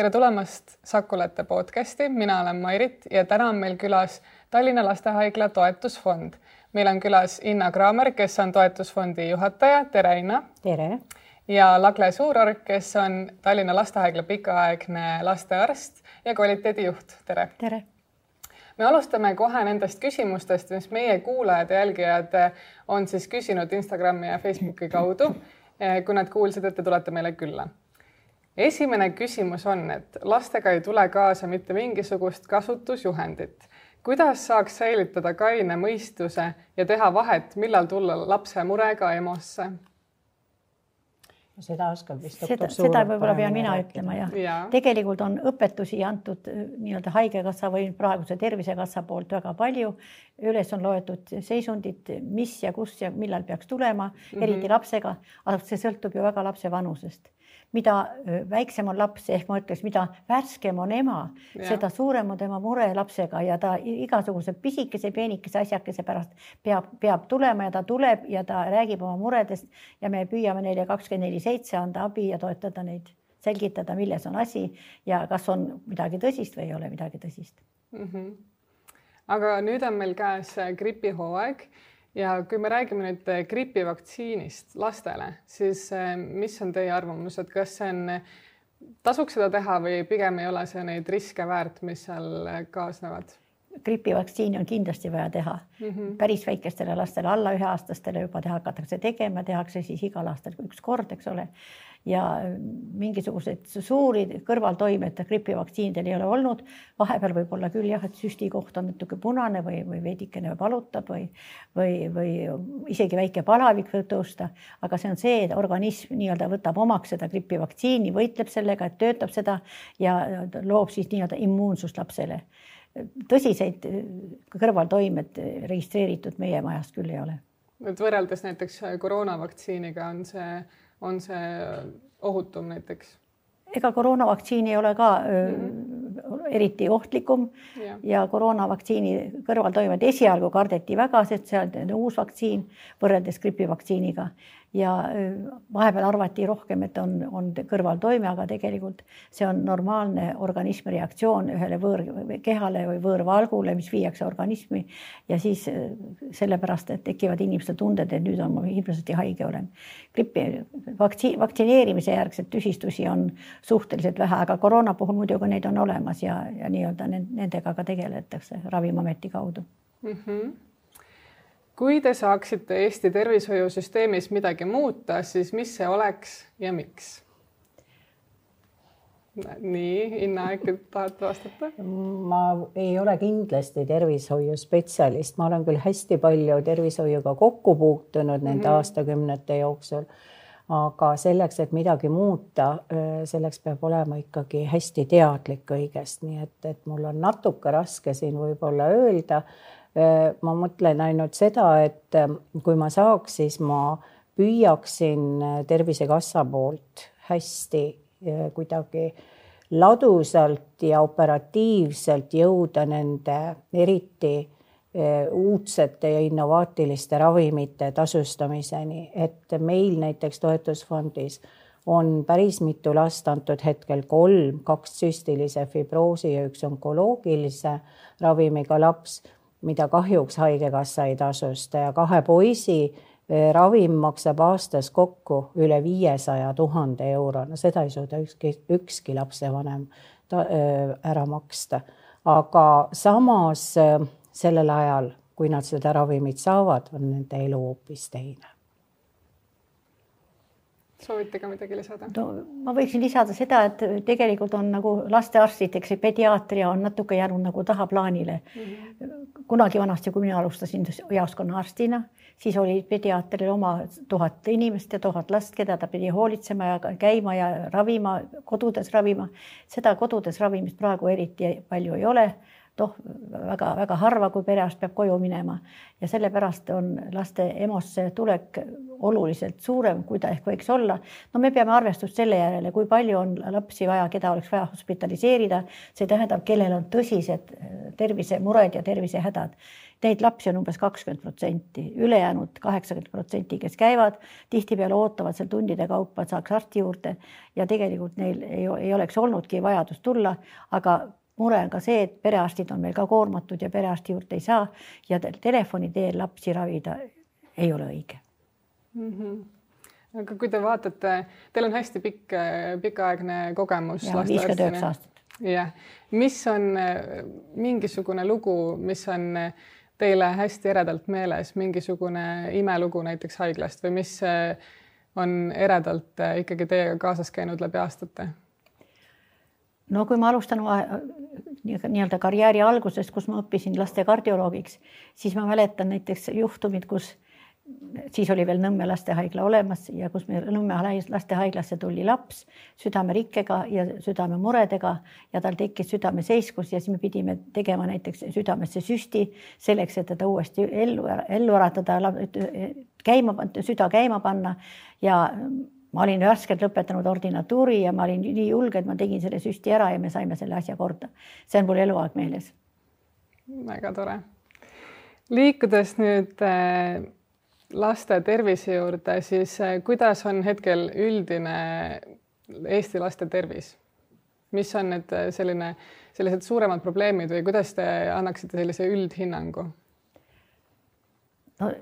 Tere tulemast Sakulate podcasti, mina olen Mairit ja täna on meil külas Tallinna Lastehaigla toetusfond. Meil on külas Inna Kraamer, kes on toetusfondi juhataja. Tere, Inna. Tere. Ja Lagle Suurorg, kes on Tallinna Lastehaigla pikaaegne lastearst ja kvaliteedijuht. Tere. Tere. Me alustame kohe nendest küsimustest, mis meie kuulajad ja jälgijad on siis küsinud Instagrami ja Facebooki kaudu, kui nad kuulsid, et te tulete meile külla. Esimene küsimus on, et lastega ei tule kaasa mitte mingisugust kasutusjuhendit. Kuidas saaks säilitada kaine mõistuse ja teha vahet, millal tulla lapse murega EMO-sse? Seda oskab vist seda võib-olla pean mina ütlema, jah. Tegelikult on õpetusi antud nii-öelda haigekassa või praeguse tervisekassa poolt väga palju. Üles on loetud seisundid, mis ja kus ja millal peaks tulema, eriti lapsega, aga see sõltub ju väga lapse vanusest. Mida väiksem on laps, ehk ma ütleks, mida värskem on ema, seda suurem on tema mure lapsega ja ta igasuguse pisikese, peenikese asjakese pärast peab tulema ja ta tuleb ja ta räägib oma muredest ja me püüame neile 24/7 anda abi ja toetada neid, selgitada, milles on asi ja kas on midagi tõsist või ei ole midagi tõsist. Aga nüüd on meil käes gripihooaeg. Ja kui me räägime nüüd gripivaktsiinist lastele, siis mis on teie arvamus, et kas see on, tasuks seda teha või pigem ei ole see neid riske väärt, mis seal kaasnevad? Gripivaktsiini on kindlasti vaja teha. Päris väikestele lastele, alla 1-aastastele juba hakatakse tegema, tehakse siis igal aastal üks kord, eks ole. Ja mingisugused suuri kõrvaltoimed gripivaktsiinidel ei ole olnud. Vahepeal võib olla küll jah, et süsti koht on natuke punane või veidikene valutab või isegi väike palavik võib tõusta. Aga see on see, et organism nii-öelda võtab omaks seda gripivaktsiini, võitleb sellega, et töötab seda ja loob siis nii-öelda immuunsust lapsele. Tõsiseid kõrvaltoimed registreeritud meie majast küll ei ole. Et võrreldes näiteks koroonavaktsiiniga on see ohutum näiteks? Ega koroonavaktsiin ei ole ka eriti ohtlikum ja koroonavaktsiini kõrvaltoimed esialgu kardeti väga, sest see on uus vaktsiin võrreldes gripivaktsiiniga. Ja vahepeal arvati rohkem, et on kõrvaltoime, aga tegelikult see on normaalne organismi reaktsioon ühele võõrkehale või võõrvalgule, mis viiakse organismi ja siis sellepärast, et tekivad inimestel tunded, et nüüd on ma hirmsasti haige olen. Vaktsineerimise järgselt tüsistusi on suhteliselt vähe, aga koroona puhul muidugi neid on olemas ja nii-öelda nendega ka tegeletakse Ravimiameti kaudu. Kui te saaksite Eesti tervishoiusüsteemis midagi muuta, siis mis see oleks ja miks? Nii, Inna, äkki tahad vastata? Ma ei ole kindlasti tervishoiuspetsialist. Ma olen küll hästi palju tervishoiuga kokku puutunud nende aastakümnete jooksul, aga selleks, et midagi muuta, selleks peab olema ikkagi hästi teadlik kõigest. Nii et mul on natuke raske siin võib-olla öelda. Ma mõtlen ainult seda, et kui ma saaks, siis ma püüaksin Tervisekassa poolt hästi kuidagi ladusalt ja operatiivselt jõuda nende eriti uudsete ja innovaatiliste ravimite tasustamiseni, et meil näiteks toetusfondis on päris mitu last antud hetkel 3, 2 süstilise fibroosi ja 1 onkoloogilise ravimiga laps, mida kahjuks haigekassa ei tasusta ja 2 poisi ravim maksab aastas kokku üle 500 000 euro. No seda ei suuda ükski lapsevanem ära maksta. Aga samas sellel ajal, kui nad seda ravimit saavad, on nende elu hoopis teine. Soovite ka midagi lisada? Ma võiksin lisada seda, et tegelikult on nagu lastearstiteks ja pediaatria on natuke jäänud nagu tahaplaanile. Kunagi vanasti, kui mina alustasin jaoskonna arstina, siis oli pediaatril oma 1000 inimest ja 1000 last, keda ta pidi hoolitsema ja käima ja ravima, kodudes ravima. Seda kodudes ravimist praegu eriti palju ei ole. Väga harva, kui perearst peab koju minema ja sellepärast on laste EMO-sse tulek oluliselt suurem, kui ta ehk võiks olla. No me peame arvestust selle järele, kui palju on lapsi vaja, keda oleks vaja hospitaliseerida. See tähendab, kellel on tõsised tervisemured ja tervisehädad. Neid lapsi on umbes 20%, ülejäänud 80%, kes käivad, tihtipeale ootavad seal tundide kaupa, et saaks arsti juurde ja tegelikult neil ei oleks olnudki vajadust tulla, aga mure on ka see, et perearstid on meil ka koormatud ja perearsti juurde ei saa ja telefoni teel lapsi ravida ei ole õige. Aga kui te vaatate, teil on hästi pikaaegne kogemus. Ja 59 aastat. Jah. Mis on mingisugune lugu, mis on teile hästi eredalt meeles, mingisugune imelugu näiteks haiglast või mis on eredalt ikkagi teiega kaasas käinud läbi aastate? No kui ma alustan nii-öelda karjääri algusest, kus ma õppisin laste kardioloogiks, siis ma mäletan näiteks juhtumid, kus siis oli veel Nõmme lastehaigla olemas ja kus me Nõmme lastehaiglasse tuli laps südamerikkega ja südamemuredega ja tal tekkis südameseiskus ja siis me pidime tegema näiteks südamesse süsti selleks, et teda uuesti ellu äratada, süda käima panna ja ma olin värskelt lõpetanud ordinatuuri ja ma olin nii julge, et ma tegin selle süsti ära ja me saime selle asja korda. See on mul eluaeg meeles. Väga tore. Liikudes nüüd laste tervise juurde, siis kuidas on hetkel üldine Eesti laste tervis? Mis on need sellised suuremad probleemid või kuidas te annaksite sellise üldhinnangu? No,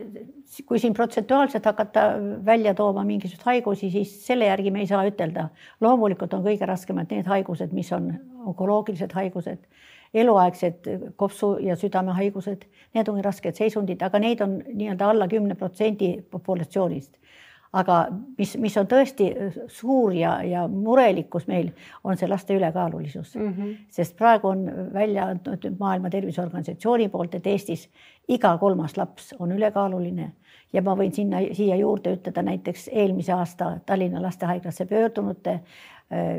kui siin protsentuaalselt hakata välja tooma mingisugust haigusi, siis selle järgi me ei saa ütelda. Loomulikult on kõige raskemad need haigused, mis on onkoloogilised haigused, eluaegsed kopsu- ja südamehaigused, need on rasked seisundid, aga neid on nii-öelda alla 10% populatsioonist. Aga mis on tõesti suur ja murelikkus meil, on see laste ülekaalulisus. Sest praegu on välja antud Maailma Terviseorganisatsiooni poolt, et Eestis iga 3. laps on ülekaaluline ja ma võin siia juurde ütelda näiteks eelmise aasta Tallinna lastehaiglasse pöördunute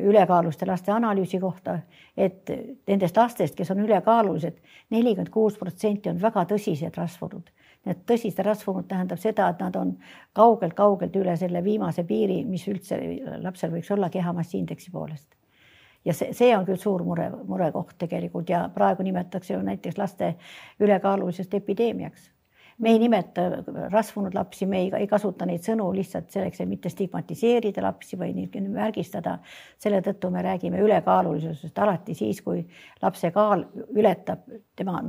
ülekaaluste laste analüüsi kohta, et nendest lastest, kes on ülekaalulised, 46% on väga tõsised rasvunud. Need tõsised rasvunud tähendab seda, et nad on kaugelt üle selle viimase piiri, mis üldse lapsel võiks olla kehamassiindeksi poolest. Ja see on küll suur murekoht tegelikult ja praegu nimetatakse ju näiteks laste ülekaalulisest epideemiaks. Me ei nimeta rasvunud lapsi, me ei kasuta neid sõnu lihtsalt selleks, et mitte stigmatiseerida lapsi või märgistada. Selle tõttu me räägime ülekaalulisusest alati siis, kui lapse kaal ületab tema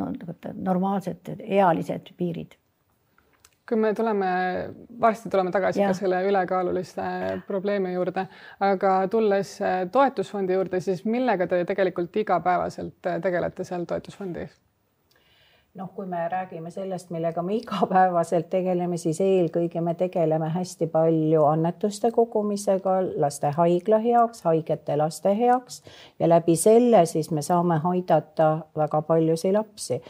normaalsed ealised piirid. Kui me varsti tuleme tagasi ka selle ülekaaluliste probleemi juurde, aga tulles toetusfondi juurde, siis millega te tegelikult igapäevaselt tegelete seal toetusfondis? Kui me räägime sellest, millega me igapäevaselt tegeleme, siis eelkõige me tegeleme hästi palju annetuste kogumisega laste haigla heaks, haigete laste heaks ja läbi selle siis me saame aidata väga paljusid lapsi.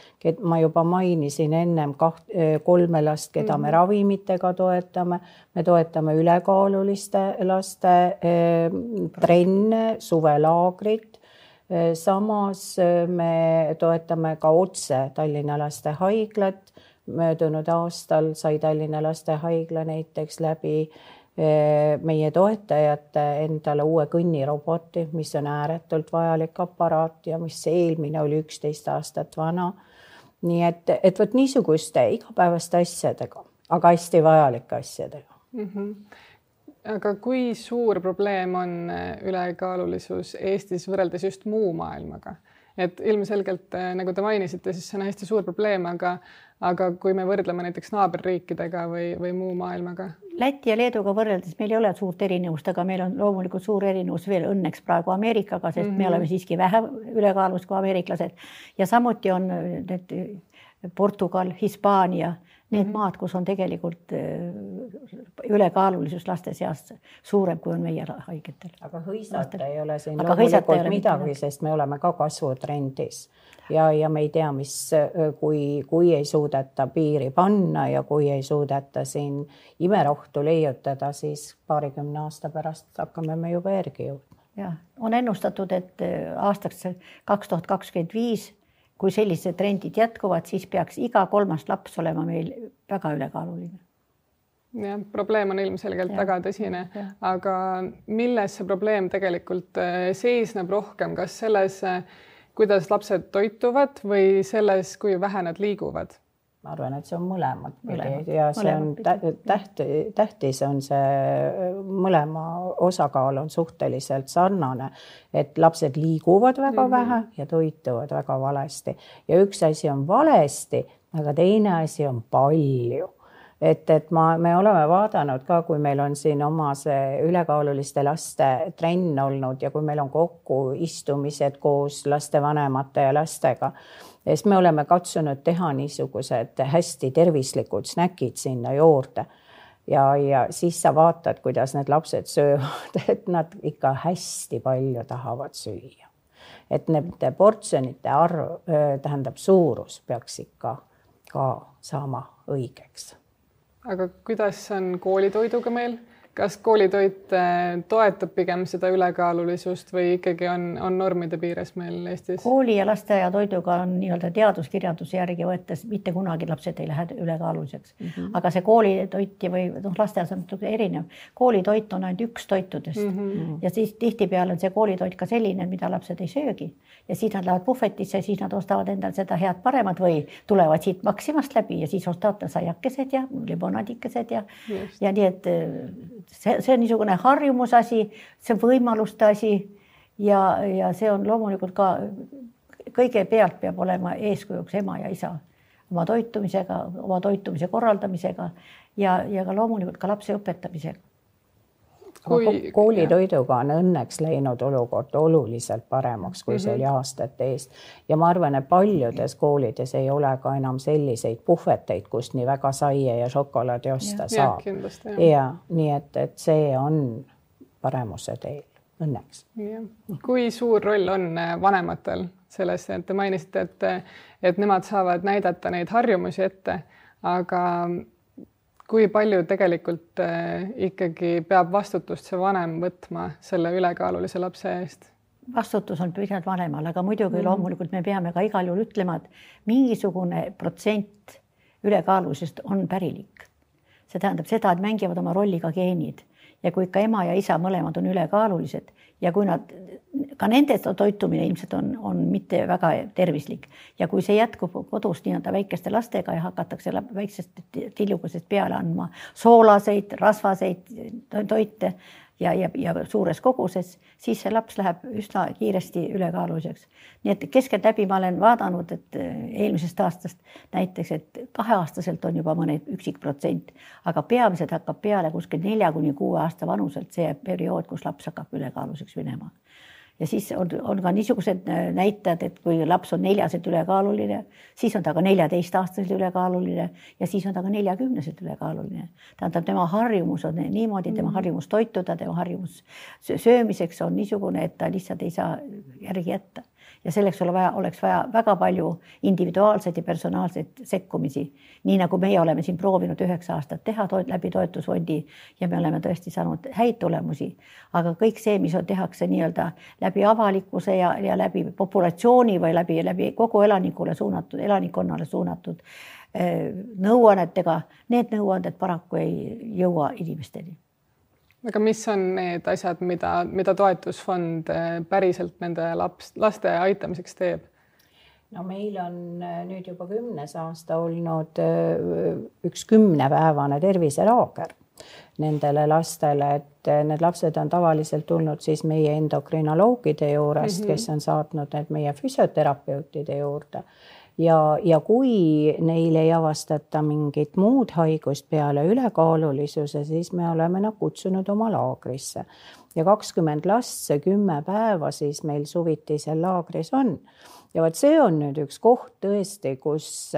Ma juba mainisin ennem 3 last, keda me ravimitega toetame. Me toetame ülekaaluliste laste trenne, suvelaagrit. Samas me toetame ka otse Tallinna lastehaiglat. Möödunud aastal sai Tallinna lastehaigla näiteks läbi meie toetajate endale uue kõnniroboti, mis on ääretult vajalik aparaat ja mis eelmine oli 11 aastat vana. Nii et võt niisuguste igapäevaste asjadega, aga hästi vajalike asjadega. Aga kui suur probleem on ülekaalulisus Eestis võrreldes just muu maailmaga? Et ilmselgelt, nagu te mainisite, siis see on hästi suur probleem, aga kui me võrdleme näiteks naaberriikidega või muu maailmaga? Läti ja Leeduga võrreldes meil ei ole suurt erinevust, aga meil on loomulikult suur erinevus veel õnneks praegu Ameerikaga, sest me oleme siiski vähem ülekaalus kui ameeriklased. Ja samuti on need Portugal, Hispaania, need maad, kus on tegelikult ülekaalulisus laste seas suurem, kui on meie haigetel. Aga hõisata ei ole siin loomulikult midagi, sest me oleme ka kasvutrendis. Ja me ei tea, kui ei suudeta piiri panna ja kui ei suudeta siin imerohtu leiutada, siis 20 aasta pärast hakkame me juba järgi jõudma. Ja, on ennustatud, et aastaks 2025 kui sellised trendid jätkuvad, siis peaks iga 3. laps olema meil väga ülekaaluline. Ja, probleem on ilmselgelt väga tõsine, aga milles see probleem tegelikult seisneb rohkem? Kas selles, kuidas lapsed toituvad või selles, kui vähe nad liiguvad? Ma arvan, et see on mõlemad pidi ja see on tähtis on see mõlema osakaal on suhteliselt sarnane, et lapsed liiguvad väga vähe ja toituvad väga valesti. Ja üks asi on valesti, aga teine asi on palju. Et me oleme vaadanud ka, kui meil on siin oma see ülekaaluliste laste trenn olnud ja kui meil on kokku istumised koos lastevanemate ja lastega, siis me oleme katsunud teha niisugused hästi tervislikud snäkid sinna juurde. Ja siis sa vaatad, kuidas need lapsed söövad, et nad ikka hästi palju tahavad süüa. Et need portsjonite arv, tähendab suurus peaks ikka ka saama õigeks. Aga kuidas on koolitoiduga meil? Kas koolitoit toetab pigem seda ülekaalulisust või ikkagi on normide piires meil Eestis? Kooli ja lasteaia toiduga on nii-öelda teaduskirjanduse järgi võttes mitte kunagi lapsed ei lähe ülekaaluliseks. Aga see koolitoit või lasteaias on erinev. Koolitoit on ainult üks toitudest ja siis tihtipeale on see koolitoit ka selline, mida lapsed ei söögi. Ja siis nad lähevad puhvetisse ja siis nad ostavad endal seda head paremat või tulevad siit Maximast läbi ja siis ostavad saiakesed ja limonadikesed ja nii, et see on niisugune harjumusasi, see on võimaluste asi ja see on loomulikult ka kõigepealt peab olema eeskujuks ema ja isa oma toitumisega, oma toitumise korraldamisega ja ka loomulikult ka lapse õpetamisega. Koolitoiduga on õnneks läinud olukord oluliselt paremaks, kui see oli aastate eest. Ja ma arvan, et paljudes koolides ei ole ka enam selliseid puhveteid, kust nii väga saie ja šokolaadi osta saab. Ja nii, et see on paremuse teel, õnneks. Kui suur roll on vanematel selles, et te mainisite, et nemad saavad näidata neid harjumusi ette, aga kui palju tegelikult ikkagi peab vastutust see vanem võtma selle ülekaalulise lapse eest? Vastutus on pigem vanemal, aga muidugi loomulikult me peame ka igal juhul ütlema, et mingisugune protsent ülekaalulisest on pärilik. See tähendab seda, et mängivad oma rolli ka geenid ja kui ikka ema ja isa mõlemad on ülekaalulised ja kui nad, ka nende toitumine ilmselt on mitte väga tervislik ja kui see jätkub kodus nii-öelda väikeste lastega ja hakatakse väiksest tillukesest peale andma soolaseid, rasvaseid toite ja suures koguses, siis see laps läheb üsna kiiresti ülekaaluliseks. Nii et keskeltläbi ma olen vaadanud, et eelmisest aastast näiteks, et 2-aastaselt on juba mõne üksik protsent, aga peamiselt hakkab peale kuskil 4-6 aasta vanuselt see periood, kus laps hakkab ülekaaluliseks minema. Ja siis on ka niisugused näitajad, et kui laps on 4-selt ülekaaluline, siis on ta ka 14-aastaselt ülekaaluline ja siis on ta ka 40-selt ülekaaluline. Tähendab, tema harjumus on niimoodi, tema harjumus toituda, tema harjumus söömiseks on niisugune, et ta lihtsalt ei saa järgi jätta. Ja selleks oleks vaja väga palju individuaalseid ja personaalseid sekkumisi. Nii nagu meie oleme siin proovinud 9 aastat teha läbi toetusfondi ja me oleme tõesti saanud häid tulemusi. Aga kõik see, mis tehakse nii-öelda läbi avalikkuse ja läbi populatsiooni või läbi kogu elanikkonnale suunatud nõuannetega, need nõuanded paraku ei jõua inimesteni. Aga mis on need asjad, mida toetusfond päriselt nende laste aitamiseks teeb? No meil on nüüd juba 10. aasta olnud üks 10-päevane terviselaager nendele lastele, et need lapsed on tavaliselt tulnud siis meie endokrinoloogide juurest, kes on saatnud need meie füsioterapeutide juurde. Ja kui neil ei avastata mingit muud haigust peale ülekaalulisuse, siis me oleme nad kutsunud oma laagrisse. Ja 20 last, see 10 päeva siis meil suvitisel laagris on. Ja vaat see on nüüd üks koht tõesti, kus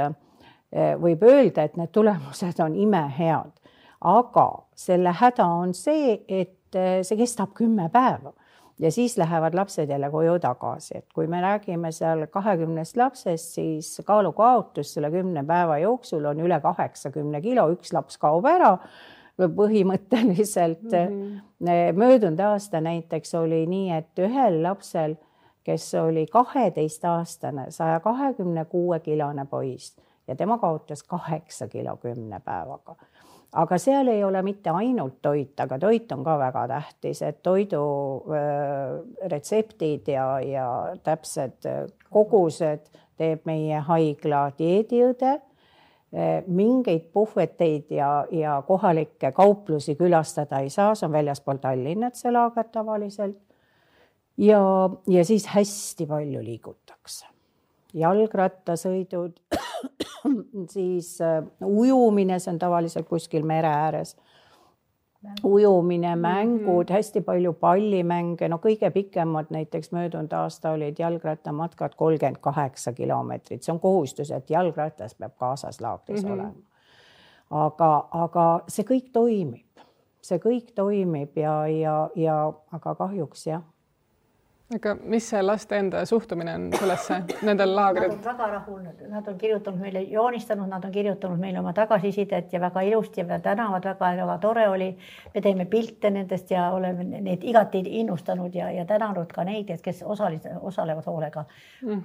võib öelda, et need tulemused on imehead. Aga selle häda on see, et see kestab 10 päeva. Ja siis lähevad lapsed jälle koju tagasi. Et kui me räägime seal 20 lapsest, siis kaalukaotus selle 10 päeva jooksul on üle 80 kilo. Üks laps kaob ära põhimõtteliselt. Möödunud aasta näiteks oli nii, et ühel lapsel, kes oli 12-aastane, 126-kilone poiss ja tema kaotas 8 kilo 10 päevaga. aga seal ei ole mitte ainult toit, aga toit on ka väga tähtis, et toidu retseptid ja täpsed kogused teeb meie haigla dieediõde. Mingeid puhveteid ja kohalikke kauplusi külastada ei saa, see on väljaspool Tallinnat see laager tavaliselt. Ja siis hästi palju liigutakse. Jalgrattasõidud, siis ujumine, see on tavaliselt kuskil mere ääres. Ujumine, mängud, hästi palju pallimänge, no kõige pikemad näiteks möödunud aasta olid jalgrattamatkad 38 kilomeetrit. See on kohustus, et jalgrattas peab kaasas laagris olema. Aga see kõik toimib. See kõik toimib aga kahjuks jah. Aga mis see laste enda suhtumine on sellesse, nendel laagrid? Nad on väga rahul, nad on kirjutanud meile, joonistanud, nad on kirjutanud meile oma tagasisidet ja väga ilusti ja tänavad väga tore oli. Me teeme pilte nendest ja oleme neid igati innustanud ja tänanud ka neid, kes osalevad hoolega.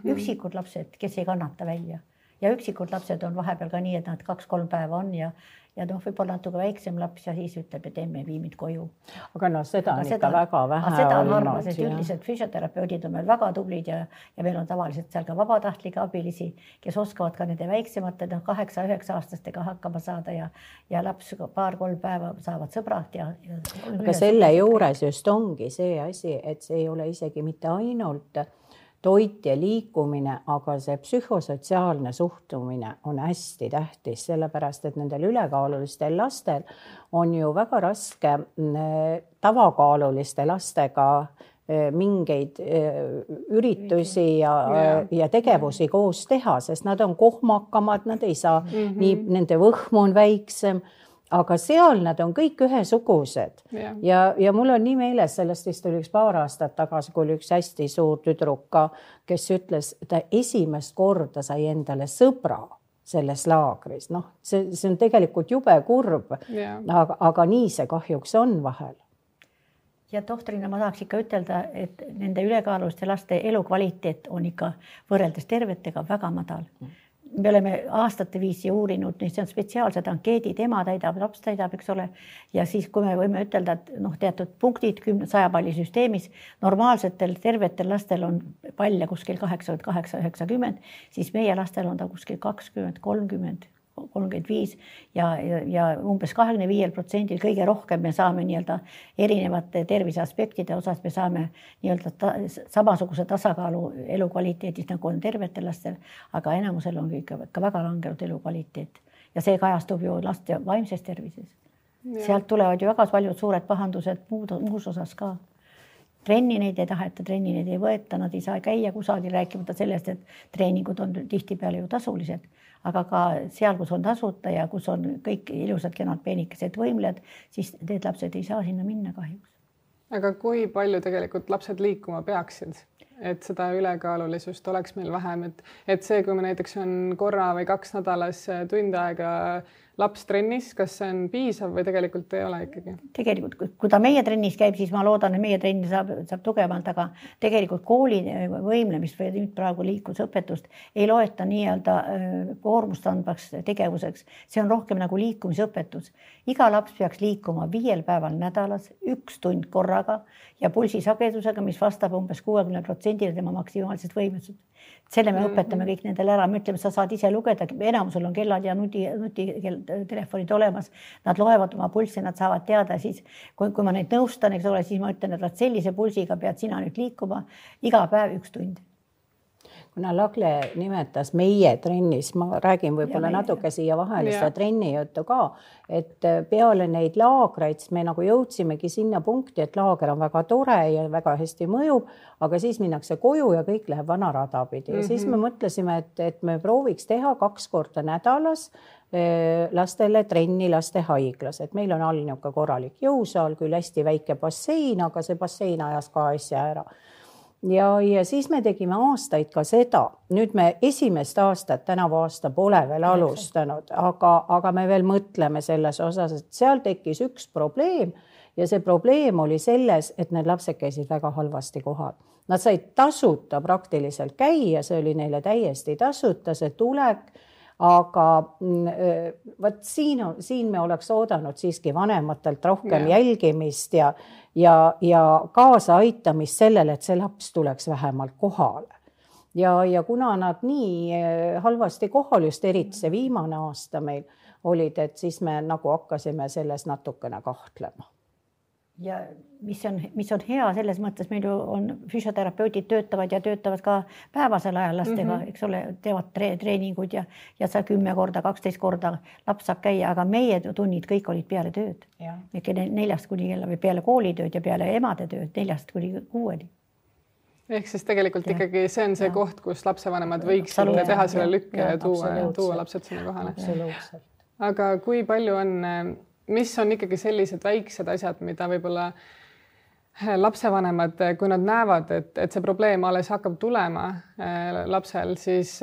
Üksikud lapsed, kes ei kannata välja ja üksikud lapsed on vahepeal ka nii, et nad 2-3 päeva on ja võib-olla natuke väiksem laps ja siis ütleb, et emme vii mind koju. Aga seda on ikka väga vähe seda on harva, sest üldiselt füsioterapeudid on meil väga tublid ja meil on tavaliselt seal ka vabatahtlikke abilisi, kes oskavad ka nende väiksemate 8-9 aastastega hakkama saada ja laps 2-3 päeva saavad sõbrad. Aga selle juures just ongi see asi, et see ei ole isegi mitte ainult toit ja liikumine, aga see psühhosotsiaalne suhtumine on hästi tähtis, sellepärast, et nendel ülekaalulistel lastel on ju väga raske tavakaaluliste lastega mingeid üritusi ja tegevusi koos teha, sest nad on kohmakamad, nad ei saa, nii nende võhm on väiksem, aga seal nad on kõik ühesugused ja mul on nii meeles, sellest vist oli üks paar aastat tagasi, kui oli üks hästi suur tüdruk, kes ütles, ta esimest korda sai endale sõbra selles laagris. See on tegelikult jube kurb, aga nii see kahjuks on vahel. Ja tohtrina ma tahaks ikka ütelda, et nende ülekaaluliste laste elukvaliteet on ikka võrreldes tervetega väga madal. Me oleme aastate viisi uurinud, see on spetsiaalsed ankeedid, ema täidab, laps täidab, eks ole. Ja siis, kui me võime ütelda, et teatud punktid 100 palli süsteemis, normaalsetel tervetel lastel on palle kuskil 88-90, siis meie lastel on ta kuskil 20, 30, 35 ja umbes 25% kõige rohkem me saame nii-öelda erinevate tervise aspektide osas, me saame nii-öelda samasuguse tasakaalu elukvaliteedis, nagu on tervetel lastel, aga enamusel on ikka väga langenud elukvaliteet ja see kajastub ju laste vaimses tervises. Sealt tulevad ju väga paljud suured pahandused muus osas ka. Trenni neid ei taheta, trenni neid ei võeta, nad ei saa käia kusagil rääkimata sellest, et treeningud on tihtipeale ju tasulised. Aga ka seal, kus on tasuta ja kus on kõik ilusad kenad peenikesed võimled, siis need lapsed ei saa sinna minna kahjuks. Aga kui palju tegelikult lapsed liikuma peaksid, et seda ülekaalulisust oleks meil vähem, et see, kui me näiteks on korra või 2 nädalas tund aega laps trennis, kas see on piisav või tegelikult ei ole ikkagi? Tegelikult, kui ta meie trennis käib, siis ma loodan, et meie trenni saab tugevalt, aga tegelikult kooli võimlemist või nüüd praegu liiklusõpetust ei loeta nii-öelda koormust andvaks tegevuseks. See on rohkem nagu liikumisõpetus. Iga laps peaks liikuma 5 päeval nädalas, 1 tund korraga ja pulsisagedusega, mis vastab umbes 60% tema maksimaalsest võimesust. Selle me õpetame kõik nendele ära, me ütleme, sa saad ise lugeda, enamusel on kellad ja nutitelefonid olemas, nad loevad oma pulssi, nad saavad teada, siis kui ma neid nõustan, eks ole, siis ma ütlen, et sellise pulsiga pead sina nüüd liikuma iga päev 1 tund. Kuna Lagle nimetas meie trennis, ma räägin võib-olla natuke siia vahele seda trenni juttu ka, et peale neid laagreid me nagu jõudsimegi sinna punkti, et laager on väga tore ja väga hästi mõjub, aga siis minnakse koju ja kõik läheb vana rada pidi. Ja siis me mõtlesime, et me prooviks teha 2 korda nädalas lastele trenni laste haiglas, et meil on all niuke korralik jõusaal, küll hästi väike bassein, aga see bassein ajas ka asja ära. Ja siis me tegime aastaid ka seda. Nüüd me esimest aastat, tänavu aasta pole veel alustanud, aga me veel mõtleme selles osas, et seal tekkis üks probleem ja see probleem oli selles, et need lapsed käisid väga halvasti kohal. Nad said tasuta praktiliselt käia, see oli neile täiesti tasuta, see tulek, aga vot siin me oleks oodanud siiski vanematelt rohkem jälgimist ja kaasaaitamist sellele, et see laps tuleks vähemalt kohale. Ja kuna nad nii halvasti kohal, just eriti see viimane aasta meil olid, et siis me nagu hakkasime selles natukene kahtlema. Ja mis on hea selles mõttes, meil ju on füsioterapeudid töötavad ka päevasel ajal lastega, eks ole, teevad treeningud ja sa 10 korda, 12 korda laps saab käia, aga meie tunnid kõik olid peale tööd. 4 kuni kella või peale koolitööd ja peale emade tööd 4 kuni 6. Ehk siis tegelikult ikkagi see on see koht, kus lapsevanemad võiksid teha selle lükke ja tuua lapsed sinna kohale. Aga kui palju on, mis on ikkagi sellised väiksed asjad, mida võib-olla lapsevanemad, kui nad näevad, et see probleem alles hakkab tulema lapsel, siis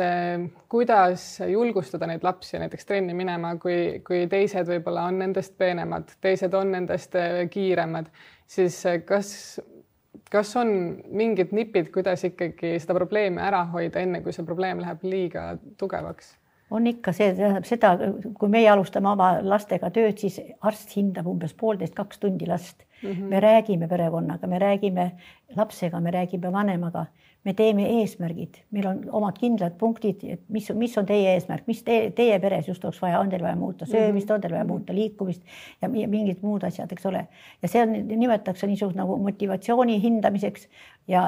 kuidas julgustada neid lapsi näiteks trenni minema, kui teised võib-olla on nendest peenemad, teised on nendest kiiremad, siis kas on mingid nipid, kuidas ikkagi seda probleemi ära hoida, enne kui see probleem läheb liiga tugevaks? On ikka see, tähendab seda, kui meie alustame oma lastega tööd, siis arst hindab umbes 1,5–2 tundi last. Me räägime perekonnaga, me räägime lapsega, me räägime vanemaga, me teeme eesmärgid, meil on omad kindlad punktid, et mis on teie eesmärk, mis teie peres just oleks vaja, on teil vaja muuta söömist, on teil vaja muuta liikumist ja mingid muud asjad, eks ole. Ja see nimetatakse niisugune nagu motivatsiooni hindamiseks ja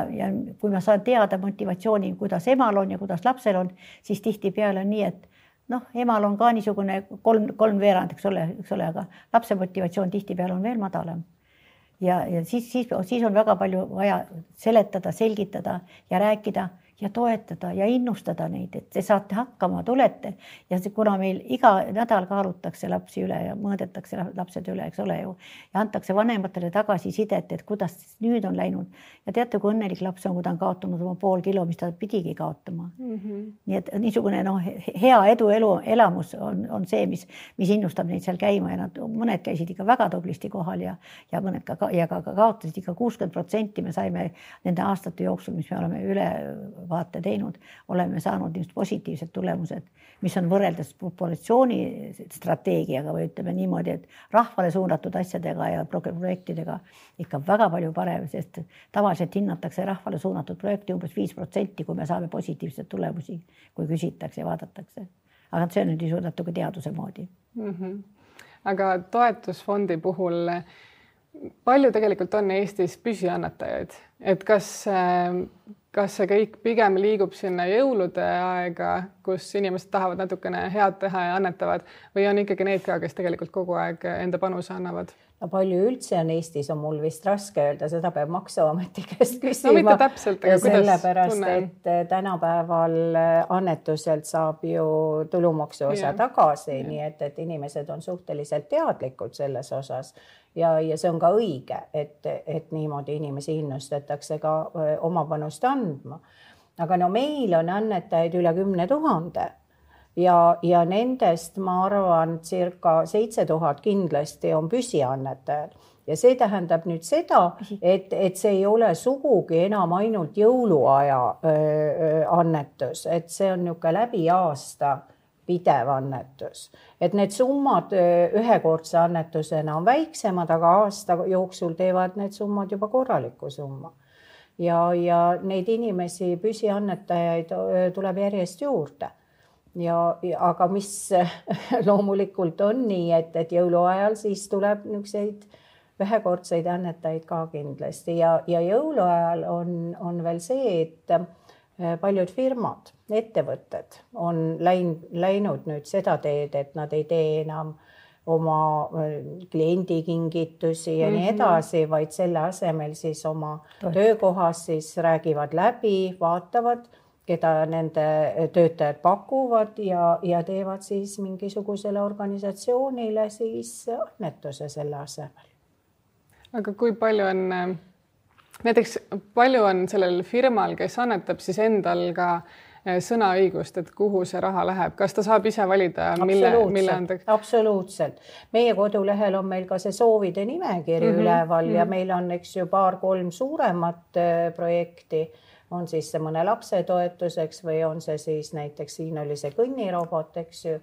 kui ma saan teada motivatsiooni, kuidas emal on ja kuidas lapsel on, siis tihtipeale on nii, et emal on ka niisugune 3/3, eks ole, aga lapse motivatsioon tihtipeale on veel madalam. Ja siis on väga palju vaja seletada, selgitada ja rääkida ja toetada ja innustada neid, et te saate hakkama, tulete. Ja kuna meil iga nädal kaalutakse lapsi üle ja mõõdetakse lapsed üle, eks ole ju, ja antakse vanematele tagasisidet, et kuidas nüüd on läinud. Ja teate, kui õnnelik laps on, kui ta on kaotanud oma 0,5 kilo, mis ta pidigi kaotama. Nii et niisugune hea elamus on see, mis innustab neid seal käima ja mõned käisid ikka väga tublisti kohal ja mõned ka kaotasid ikka 60%. Me saime nende aastate jooksul, mis me oleme ülevaate teinud, oleme saanud just positiivsed tulemused, mis on võrreldes populatsiooni strateegiaga või ütleme niimoodi, et rahvale suunatud asjadega ja projektidega ikka väga palju parem, sest tavaliselt hinnatakse rahvale suunatud projekti umbes 5%, kui me saame positiivseid tulemusi, kui küsitakse ja vaadatakse. Aga see on nüüd natuke teaduse moodi. Aga toetusfondi puhul palju tegelikult on Eestis püsiannetajaid, et kas see kõik pigem liigub sinna jõulude aega, kus inimesed tahavad natukene head teha ja annetavad või on ikkagi need ka, kes tegelikult kogu aeg enda panuse annavad? No palju üldse on Eestis, on mul vist raske öelda, seda peab Maksuameti käest küsima. No mitte täpselt, aga sellepärast, et tänapäeval annetuselt saab ju tulumaksu osa tagasi, nii et inimesed on suhteliselt teadlikud selles osas ja see on ka õige, et niimoodi inimesi innustatakse ka oma panust andma. Aga meil on annetajaid üle 10 000 ja nendest ma arvan circa 7000 kindlasti on püsiannetajad ja see tähendab nüüd seda, et see ei ole sugugi enam ainult jõuluaja annetus, et see on niisugune läbi aasta pidev annetus, et need summad ühekordse annetusena on väiksemad, aga aasta jooksul teevad need summad juba korraliku summa ja neid inimesi, püsiannetajaid tuleb järjest juurde. Aga mis loomulikult on nii, et jõuluajal siis tuleb niisuguseid ühekordseid annetajaid ka kindlasti ja jõuluajal on veel see, et paljud firmad, ettevõtted on läinud nüüd seda teed, et nad ei tee enam oma kliendikingitusi ja nii edasi, vaid selle asemel siis oma töökohas siis räägivad läbi, vaatavad, keda nende töötajad pakuvad ja teevad siis mingisugusele organisatsioonile siis annetuse selle asemel. Aga kui palju on, näiteks palju on sellel firmal, kes annetab siis endal ka sõnaõigust, et kuhu see raha läheb, kas ta saab ise valida, mille andeks? Absoluutselt. Meie kodulehel on meil ka see soovide nimekiri üleval ja meil on, eks ju, 2-3 suuremat projekti on siis see mõne lapse toetuseks või on see siis näiteks siin oli see kõnnirobot, eks ju.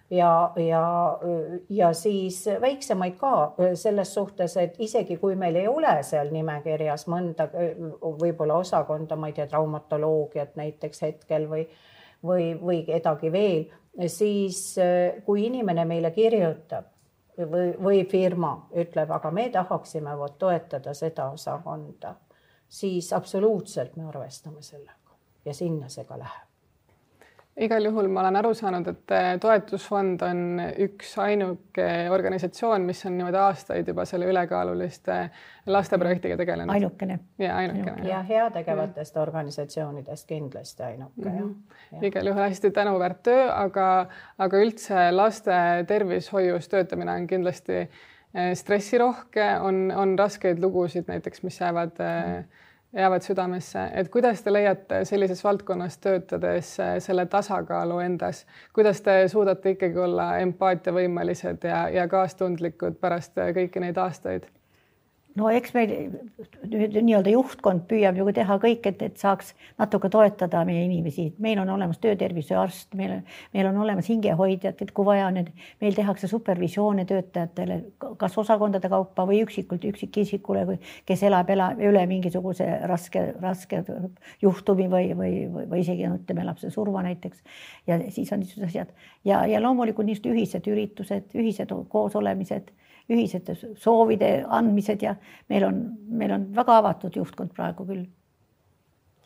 Ja siis väiksemaid ka selles suhtes, et isegi kui meil ei ole seal nimekirjas mõnda võib-olla osakonda, ma ei tea, traumatoloogiat näiteks hetkel või kedagi veel, siis kui inimene meile kirjutab või firma ütleb, aga me tahaksime toetada seda osakonda, siis absoluutselt me arvestame sellega ja sinna see ka läheb. Igal juhul ma olen aru saanud, et toetusfond on üks ainuke organisatsioon, mis on niimoodi aastaid juba selle ülekaaluliste lasteprojektiga tegelenud. Ainukene. Ja heategevatest organisatsioonidest kindlasti ainuke. Igal juhul hästi tänuväärt töö, aga üldse laste tervishoius töötamine on kindlasti stressirohke, on raskeid lugusid näiteks, mis jäävad südamesse, et kuidas te leiate sellises valdkonnas töötades selle tasakaalu endas, kuidas te suudate ikkagi olla empaatiavõimelised ja kaastundlikud pärast kõiki neid aastaid? No eks meil nii-öelda juhtkond püüab ju teha kõik, et saaks natuke toetada meie inimesi. Meil on olemas töötervishoiuarst, meil on olemas hingehoidjad, et kui vaja on, meil tehakse supervisioone töötajatele, kas osakondade kaupa või üksikisikule, kes elab üle mingisuguse raske juhtumi või isegi ütleme lapse surma näiteks. Ja siis on niisugused asjad. Ja loomulikult niisugused ühised üritused, ühised koosolemised, ühised soovide andmised ja meil on väga avatud juhtkond praegu küll.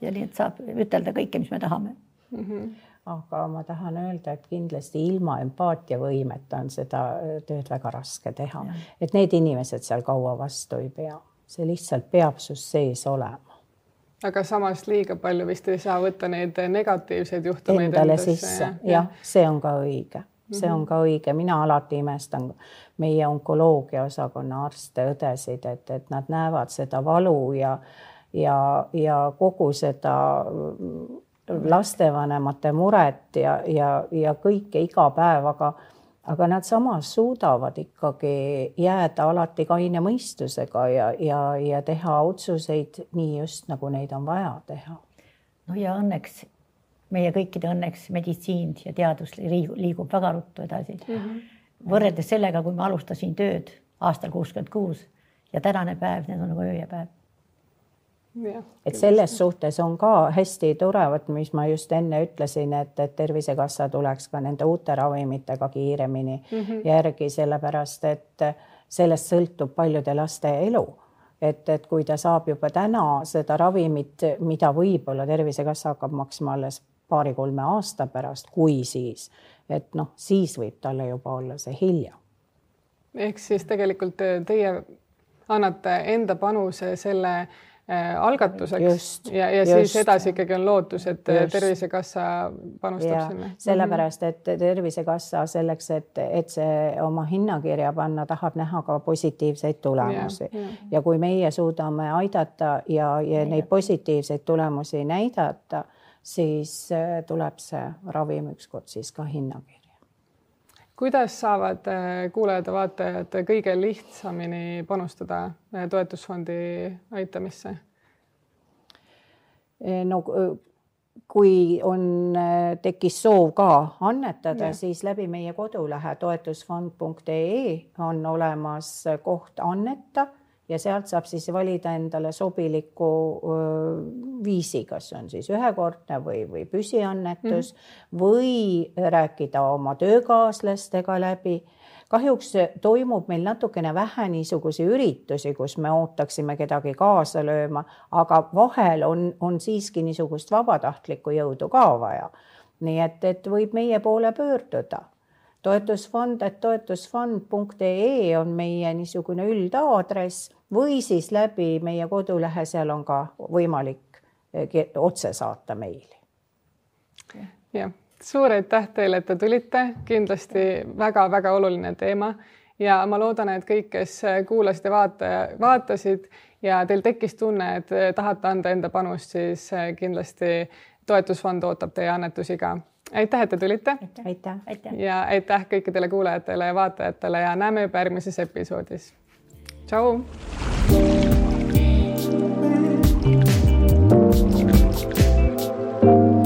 Ja nii, et saab ütelda kõike, mis me tahame. Aga ma tahan öelda, et kindlasti ilma empaatiavõimeta on seda tööd väga raske teha. Et need inimesed seal kaua vastu ei pea. See lihtsalt peab sus sees olema. Aga samas liiga palju vist ei saa võtta neid negatiivseid juhtumeid endale sisse. Jah, see on ka õige. See on ka õige. Mina alati imestan meie onkoloogia osakonna arste, õdesid, et nad näevad seda valu ja kogu seda lastevanemate muret ja kõike iga päev, aga nad samas suudavad ikkagi jääda alati kaine mõistusega ja teha otsuseid nii just nagu neid on vaja teha. No ja õnneks meie kõikide õnneks meditsiin ja teadus liigub väga ruttu edasi. Võrreldes sellega, kui ma alustasin tööd aastal 66 ja tänane päev, need on nagu öö ja päev. Et selles suhtes on ka hästi tore, mis ma just enne ütlesin, et Tervisekassa tuleks ka nende uute ravimitega kiiremini järgi, sellepärast, et sellest sõltub paljude laste elu. Et kui ta saab juba täna seda ravimit, mida võib-olla Tervisekassa hakkab maksma alles 2-3 aasta pärast, kui siis, et siis võib talle juba olla see hilja. Ehk siis tegelikult teie annate enda panuse selle algatuseks ja siis edasi ikkagi on lootus, et Tervisekassa panustab sinna. Sellepärast, et Tervisekassa selleks, et see oma hinnakirja panna, tahab näha ka positiivseid tulemusi. Ja kui meie suudame aidata ja neid positiivseid tulemusi näidata, siis tuleb see ravim ükskord siis ka hinnakirja. Kuidas saavad kuulajad ja vaatajad kõige lihtsamini panustada toetusfondi aitamisse? No, kui tekkis soov ka annetada, siis läbi meie kodulehe toetusfond.ee on olemas koht anneta ja sealt saab siis valida endale sobiliku viisi, kas on siis ühekordne või püsiannetus või rääkida oma töökaaslastega läbi. Kahjuks toimub meil natukene vähe niisugusi üritusi, kus me ootaksime kedagi kaasa lööma, aga vahel on siiski niisugust vabatahtlikku jõudu ka vaja. Nii et võib meie poole pöörduda. Toetusfond.ee on meie niisugune üldaadress või siis läbi meie kodulehe, seal on ka võimalik otse saata meili. Ja, suur aitäh teile, et te tulite. Kindlasti väga-väga oluline teema ja ma loodan, et kõik, kes kuulasid ja vaatasid ja teil tekkis tunne, et tahate anda enda panust, siis kindlasti toetusfond ootab teie annetusi ka. Aitäh, et te tulite. Aitäh. Ja aitäh kõikidele kuulajatele ja vaatajatele ja näeme juba järgmises episoodis. Tšau! Thank you.